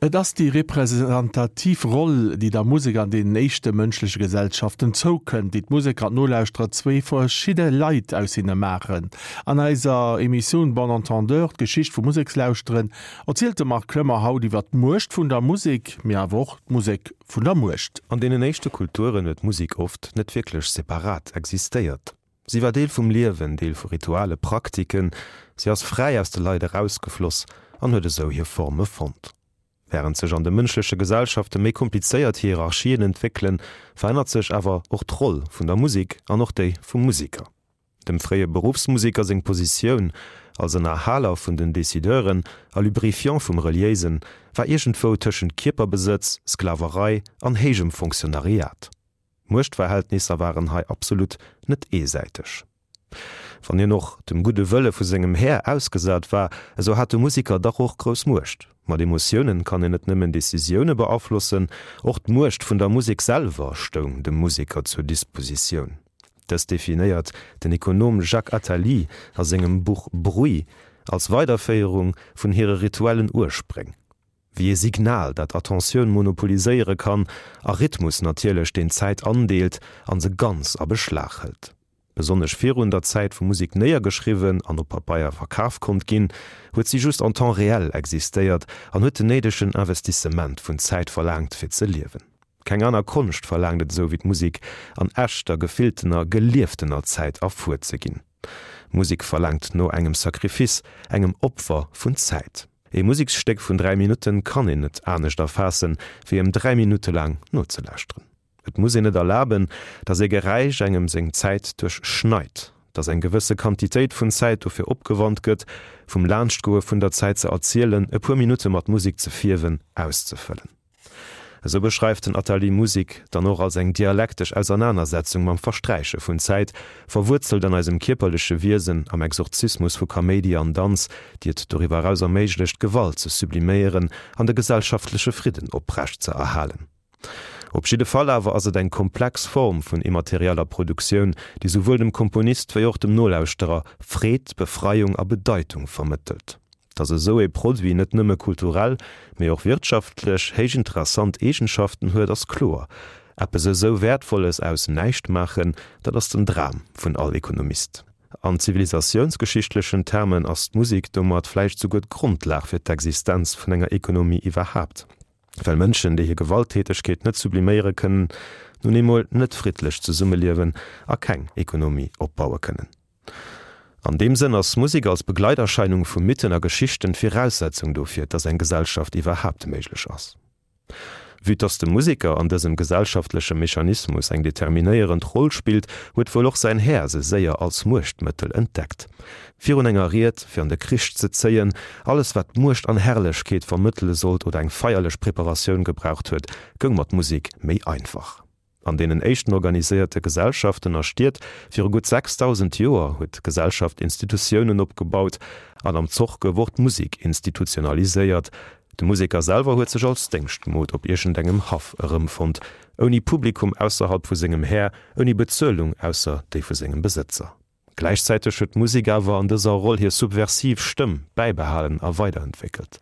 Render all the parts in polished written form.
Et ass déi representativ Roll, déi der Musek an deenen éischte mënschleche Gesellschaften zoukënnt, déi d'Museker an d'Nolauschterer zwéi verschidde Leit aus hinne maachen. An eiser Emissioun Bon Entendeur, d'Geschicht vum Musekslauschteren, erzielt de Marc Clement haut iwwer d'Muecht vun der Musek, mee awer och d'Musek vun der Muecht. An deenen éischte Kulturen huet d'Musek oft net wierklech separat existéiert. Si war Deel vum Liewen, Deel vu Rituale, Praktiken, si ass fräi aus de Leit erausgefloss an huet esou hir Forme fonnt. Wärend sech an de mënschleche Gesellschafte méi komplizéiert Hierarchien entwéckelen, verännert sech awer och d'Roll vun der Musek an och déi vum Museker. Dem fréie Beruffsmuseker seng Positioun als Ënnerhaler vun den Decideuren a Lubrifiant vum Reliéisen war iergendwou tëschent Kierperbesëtz, Sklaverei an héijem Fonctionnariat. D'Muechtverhältnisser waren hei absolut net eesäiteg. Wann hien och dem gudde Wëlle vu sengem Här ausgesat war, esou hat de Musiker dach och grouss Muecht. Mat Emotiounen kann een net nëmmen Decisioune beaflossen, och d'Muecht vun der Musek selwer stoung dem Musiker zur Dispositioun. Dës definéiert den Ekonom Jacques Attali a sengem Buch Bruit als Weiderféierung vun hire rituellen Urspréng. Wéi ee Signal, dat Attentioun monopoliséiere kann, a Rhythmus natierlech, deen d'Zäit andeelt an se ganz a Beschlag hëlt. Besonnesch virun der Zäit, wou Musek néiergeschriwwen an op Pabeier verkaf konnt ginn, huet si just en temps réel existéiert an huet den néidegen Investissement vun Zäit verlaangt, fir ze liewen. Keng aner Konscht verlaangt et esou wéi d'Musek, an echter, gefilltener, gelieftener Zäit erfuer ze ginn. Musek verlaangt no engem Sacrifice, engem Opfer vun Zäit. Ee Museksstéck vun 3 Minutten kann een net anescht erfaassen, wéi em 3 Minutte laang nozelauschteren. Et muss een et erlaben, datt ee Geräisch engem seng Zäit duerchschneit, datt eng gewësse Quantitéit vun Zäit dofir opgewannt gëtt, vum Laanschtgoe vun der Zäit ze erzielen, e puer Minutte mat Musek ze fierwen, auszefëllen. Esou beschreift den Attali Musik dann och als eng dialektesch Ausernanersetzung mam Versträiche vun Zäit, verwuerzelt an eisem kierperleche Wiesen, am Exorzismus vu Kaméidi an Danz, déi et doriwwer eraus erméiglecht, Gewalt ze subliméieren an de gesellschaftleche Fridden oprecht ze erhalen. Op jidde Fall awer ass et eng komplex Form vun immaterieller Produktioun, déi souwuel dem Komponist wéi och dem Nolauschterer Freed, Befreiung a Bedeitung vermëttelt. Datt esou ee Produit net nëmme kulturell, mee och wirtschaftlech héich interessant Eegenschaften huet, ass kloer. Eppes esou Wäertvolles aus näischt maachen, dat ass den Dram vun all Ekonomist. An zivilisatiounsgeschichtlechen Termen ass d'Musek domat vläicht souguer d'Grondlag fir d'Existenz vun enger Ekonomie iwwerhaapt, well Mënschen, déi hir Gewalttätegkeet net subliméiere kënnen, nun eemol net friddlech zesummeliewen a keng Ekonomie opbaue kënnen. An deem Sënn ass Musek als Begleiterscheinung vu Mythen a Geschichten d'Viraussetzung dofir, dass eng Gesellschaft iwwerhaapt méiglech ass. Vue dass de Museker an dësem gesellschaftleche Mechanismus eng determinéierend Roll spillt, huet wuel och säin Här se séier als Muechtmëttel entdeckt. Virun enger Ried, fir an de Krich ze zéien, alles wat Muecht an Herrlechkeet vermëttele sollt oder eng feierlech Preparatioun gebraucht huet, goung mat Musek méi einfach. An deenen éischten organiséierte Gesellschaften a Stied viru gutt 6.000 Joer huet d'Gesellschaft Institutiounen opgebaut an am Zoch gouf och d'Musek institutionaliséiert. De Museker selwer huet sech als Déngschtmod op iergendengem Haff erëmfonnt, ouni Publikum ausserhalb vu sengem Här, ouni Bezuelung ausser déi vu sengem Besëtzer. Gläichzäiteg huet d'Musek awer an dëser Roll hir subversiv Stëmm bäibehalen a weiderentwéckelt,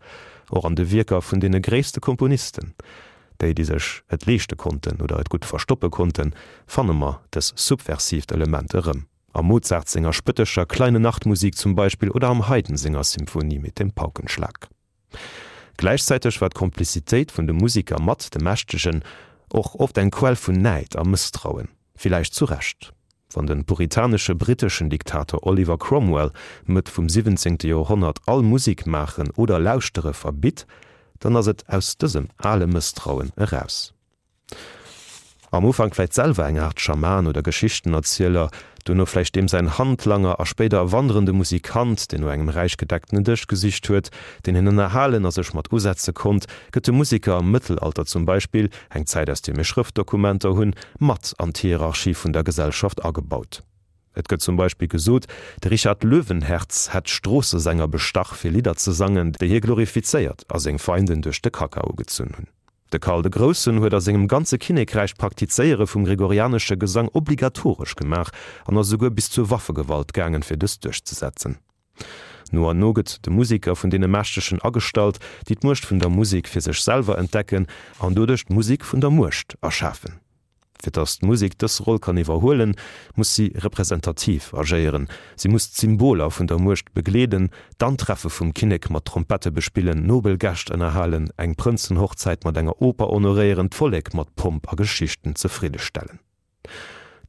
och an de Wierker vun deene gréisste Komponisten. Déi, déi sech et leeschte konnten oder et gutt verstoppe konnten, fanne mer dës subversiivt Element erëm, am Mozart senger spëttescher Kleine Nachtmusik zum Beispill oder am Haydn senger Symphonie mit dem Paukenschlag. Gläichzäiteg war d'Komplizitéit vun de Musiker mat de Mächtegen och oft eng Quell vun Näid a Mësstrauen, villäicht zu Recht. Wann de puritanesche britteschen Diktator Oliver Cromwell Mëtt vum siwwenzéngte Joerhonnert all Musik maachen oder lauschtere verbitt, dann ass et aus dësem ale Mësstrauen eraus. Am Ufank vläicht selwer eng Aart Schaman oder Geschichtenerzieler, duerno vläicht deem säin Handlanger a spéider e wanderende Musikant, deen no engem räich gedeckten Dësch gesicht huet, deen hien ënnerhalen a sech mat usetze konnt, gëtt de Musiker am Mëttelalter zum Beispill, eng Zäit aus deer mir Schrëftdokumenter hunn, mat an d'Hierarchie vun der Gesellschaft agebaut. Et gëtt zum Beispill gesot, de Richard Löwenherz hätt Stroossesänger bestach fir Lidder ze sangen, déi hie glorifizéiert a seng Feinden duerch de Kakao gezunn hunn. De Karl de Groussen huet a sengem ganze Kinnekräich d'Praktizéiere vum gregorianesche Gesang obligatoresch gemaach an ass esouguer bis zur Waffegewalt gaangen, fir dëst duerchzesetzen. No an no gëtt de Museker vun deene Mächtegen agestallt, déi d'Muecht vun der Musek fir sech selwer entdecken an doduerch d'Musek vun der Muecht erschafen. Fir datt d'Musek dës Roll kann iwwerhuelen, muss si representativ agéieren, si muss d'Symboler vun der Muecht begleeden, d'Antreffe vum Kinnek mat Trompette bespillen, nobel Gäscht ënnerhalen, eng Prënzenhochzäit mat enger Oper honoréieren, d'Vollek mat Pomp a Geschichten zefriddestellen.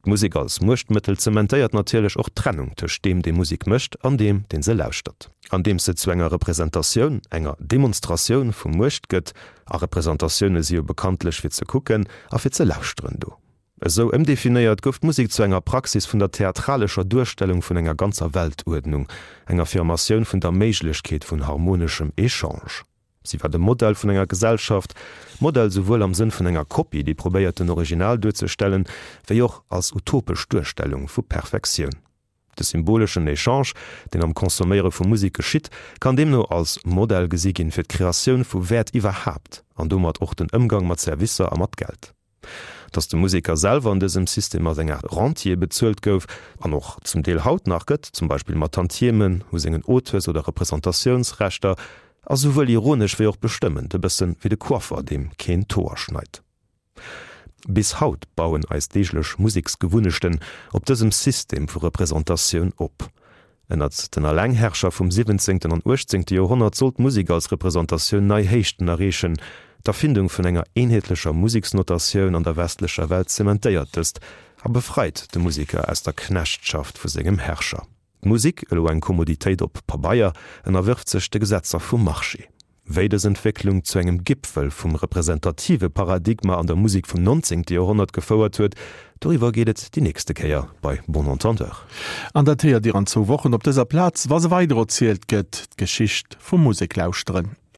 D'Musek als Muechtmëttel zementéiert natierlech och d'Trennung tëscht deem, dee Musek mécht, an deem, deen se lauschtert. Andeems se zu enger Representatioun, enger Demonstratioun vu Muecht gëtt, a Representatioune si jo bekanntlech fir ze kucken a fir ze lauschteren do. Esou ëmdefinéiert gouf d'Musek zu enger Praxis vun der theatralescher Duerstellung vun enger ganzer Weltuerdnung, eng Affirmatioun vun der Méiglechkeet vun harmoneschem Echange. Si war de Modell vun enger Gesellschaft, Modell souwuel am Sënn vun enger Kopie, déi probéiert den Original duerzestellen, wéi och als utopesch Duerstellung vu Perfektioun. De symboleschen Echange, deen am Consomméiere vu Musek geschitt, kann deemno als Modell gesi ginn fir d'Kreatioun vu Wäert iwwerhaapt an domat och den Ëmgang mat Servicer a mat Geld. Datt de Museker selwer an dësem System als eng Aart Rentier bezuelt gouf, an och zum Deel haut nach gëtt, zum Beispill mat Tantiemen u sengen Auteurs oder Representatiounsrechter, ass esouwuel ironesch wéi och bestëmmend, e bësse wéi de Coiffer, deem keen d'Hoer schneit. Bis haut bauen eis deeglech Museksgewunnechten op dësem System vu Representatioun op. Ënnert den Allengherrscher vum siwwenzéngten an uechtzéngte Joerhonnert sollt d'Musek als Representatioun nei Héichten erreechen. D'Erfindung vun enger eenheetlecher Museksnotatioun an der westlecher Welt zementéiert dëst a befreit de Museker aus der Knechtschaft vu sengem Herrscher. D'Musek, elo eng Kommoditéit op Pabeier, ënnerwërft sech de Gesetzer vum Marché. Wéi dës Entwécklung zu engem Gipfel vum representative Paradigma an der Musek vum 19. Joerhonnert gefouert huet, doriwwer geet et déi nächste Kéier bei Bon Entendeur. An dat héiert Dir an zwou Wochen op dëser Plaz, wa se weider erzielt gëtt, d'Geschicht vum Museklauschteren.